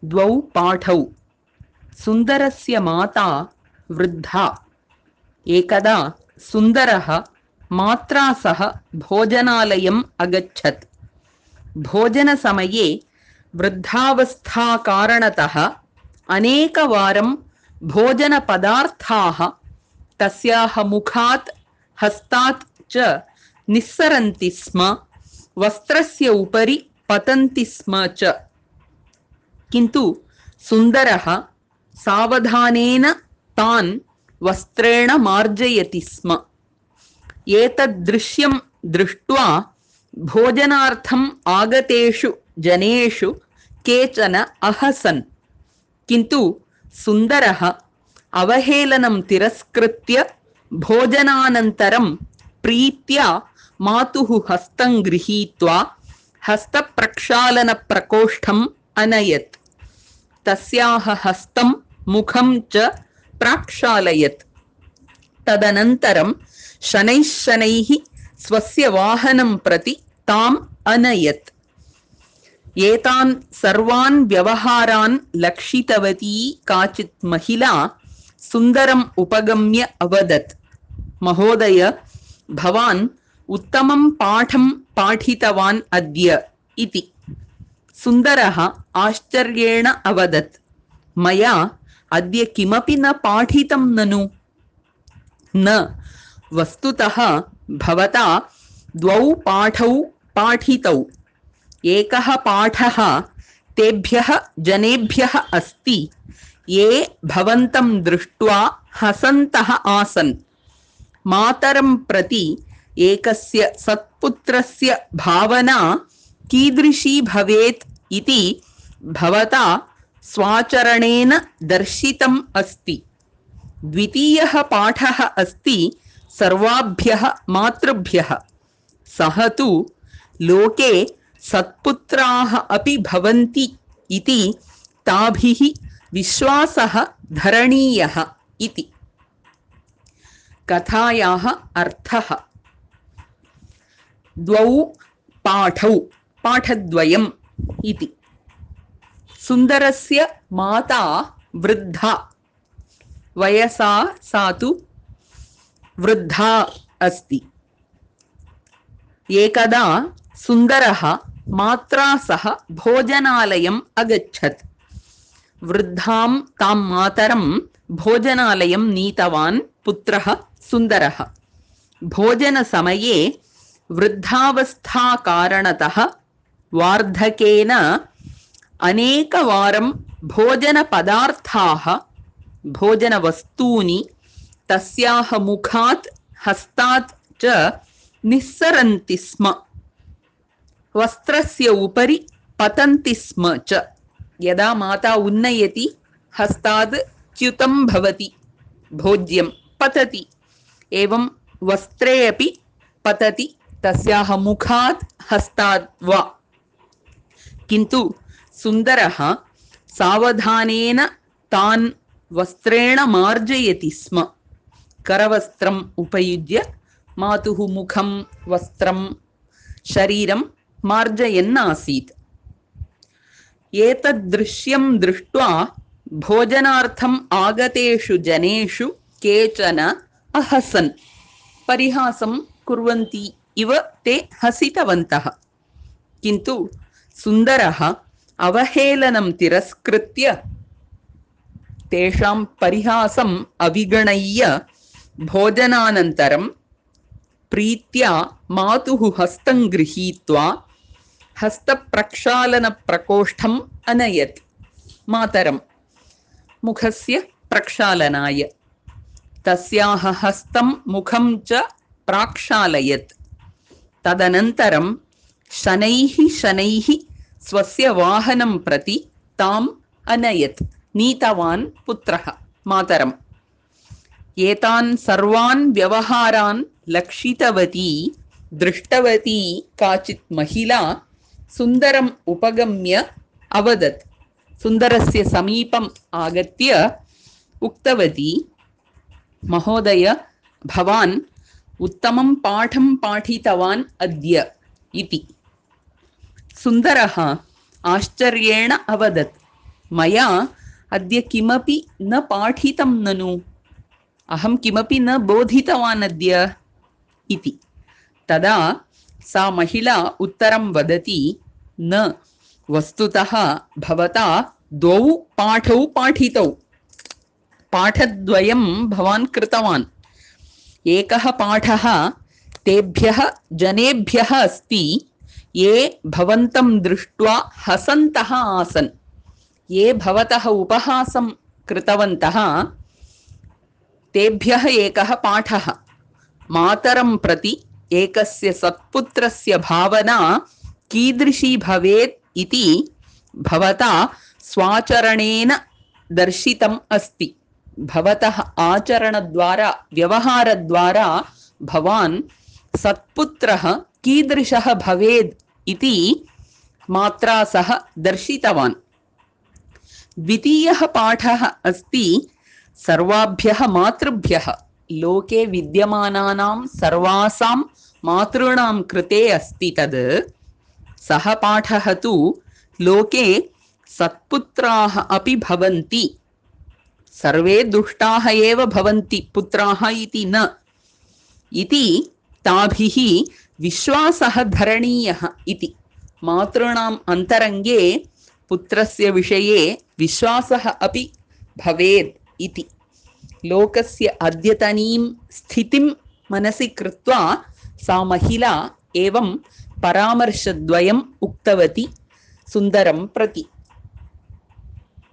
द्वौ पाठौ। सुन्दरस्य माता वृद्धा। एकदा सुन्दरः मात्रा सह भोजनालयम् अगच्छत्। भोजनसमये वृद्धावस्थाकारणतः अनेकवारं भोजनपदार्थाः तस्याः मुखात् हस्तात् च निस्सरन्ति स्म, वस्त्रस्य उपरि पतन्ति स्म च। किन्तु सुन्दरः सावधानेन तान् वस्त्रेण मार्जयति स्म। एतद्दृश्यं दृष्ट्वा भोजनार्थम् आगतेषु जनेषु केचन अहसन्। किन्तु सुन्दरः अवहेलनं तिरस्कृत्य भोजनानन्तरं प्रीत्या मातुः हस्तं गृहीत्वा हस्तप्रक्षालनप्रकोष्ठम् अनयत्। तस्याः हस्तं मुखं च प्राक्षालयत्। तदनन्तरं शनैः शनैः स्वस्य वाहनं प्रति ताम् अनयत्। एतान् सर्वान् व्यवहारान् लक्षितवती काचित् महिला सुन्दरम् उपगम्य अवदत्, महोदय, भवान् उत्तमं पाठं पाठितवान् अद्य इति। सुन्दरः आश्चर्येण अवदत्, मया अद्य किमपि न पाठितं ननु। न, वस्तुतः भवता द्वौ पाठौ पाठितौ। एकः पाठः तेभ्यः जनेभ्यः अस्ति ये भवन्तं दृष्ट्वा हसन्तः आसन्। मातरं प्रति एकस्य सत्पुत्रस्य भावना कीदृशी भवेत् इति भवता स्वाचरणेन दर्शितम् अस्ति। द्वितीयः पाठः अस्ति सर्वाभ्यः मातृभ्यः। सः तु लोके सत्पुत्राः अपि भवन्ति इति ताभिः विश्वासः धरणीयः इति। कथायाः अर्थः। द्वौ पाठौ, पाठद्वयम् इति। सुन्दरस्य माता वृद्धा, वयसा सा तु वृद्धा अस्ति। एकदा सुन्दरः मात्रा सह भोजनालयम् अगच्छत्। वृद्धां तां मातरं भोजनालयं नीतवान् पुत्रः सुन्दरः। भोजनसमये वृद्धावस्थाकारणतः वार्धकेन अनेकवारं भोजनपदार्थाः, भोजनवस्तूनि तस्याः मुखात् हस्तात् च निस्सरन्ति स्म, वस्त्रस्य उपरि पतन्ति स्म च। यदा माता उन्नयति हस्ताद् च्युतं भवति, भोज्यं पतति, एवं वस्त्रे अपि पतति, तस्याः मुखात् हस्ताद् वा। किन्तु सुन्दरः सावधानेन तान् वस्त्रेण मार्जयति स्म। करवस्त्रम् उपयुज्य मातुः मुखं, वस्त्रं, शरीरं मार्जयन् आसीत्। एतद्दृश्यं दृष्ट्वा भोजनार्थम् आगतेषु जनेषु केचन अहसन्। परिहासं कुर्वन्ति इव ते हसितवन्तः। किन्तु सुन्दरः अवहेलनं तिरस्कृत्य तेषां परिहासम् अविगणय्य भोजनानन्तरं प्रीत्या मातुः हस्तं गृहीत्वा हस्तप्रक्षालनप्रकोष्ठम् अनयत्। मातरं मुखस्य प्रक्षालनाय। तस्याः हस्तं मुखं च प्राक्षालयत्। तदनन्तरं शनैः शनैः स्वस्य वाहनं प्रति ताम् अनयत्। नीतवान् पुत्रः मातरम्। एतान् सर्वान् व्यवहारान् लक्षितवती दृष्टवती काचित् महिला सुन्दरम् उपगम्य अवदत्। सुन्दरस्य समीपम् आगत्य उक्तवती, महोदय, भवान् उत्तमं पाठं पाठितवान् अद्य इति। सुन्दरः आश्चर्येण अवदत्, मया अद्य किमपि न पाठितं ननु, अहं किमपि न बोधितवान् अद्य इति। तदा सा महिला उत्तरं वदति, न, वस्तुतः भवता द्वौ पाठौ पाठितौ, पाठद्वयं भवान् कृतवान्। एकः पाठः तेभ्यः जनेभ्यः अस्ति ये भवन्तं दृष्ट्वा हसन्तः आसन्, ये भवतः उपहासं कृतवन्तः तेभ्यः एकः पाठः। मातरं प्रति एकस्य सत्पुत्रस्य भावना कीदृशी भवेत् इति भवता स्वाचरणेन दर्शितम् अस्ति। भवतः आचरणद्वारा व्यवहारद्वारा भवान् सत्पुत्रः कीदृशः भवेत् इति मात्रा सह दर्शितवान्। द्वितीयः पाठः अस्ति सर्वाभ्यः मातृभ्यः, लोके विद्यमानानां सर्वासां मातॄणां कृते अस्ति तद्। सः पाठः तु लोके सत्पुत्राः अपि भवन्ति, सर्वे दुष्टाः एव भवन्ति पुत्राः इति न, इति ताभिः विश्वासः धरणीयः इति। मातॄणाम् अन्तरङ्गे पुत्रस्य विषये विश्वासः अपि भवेत् इति। लोकस्य अद्यतनीं स्थितिं मनसि कृत्वा सा महिला एवं परामर्शद्वयम् उक्तवती सुन्दरं प्रति।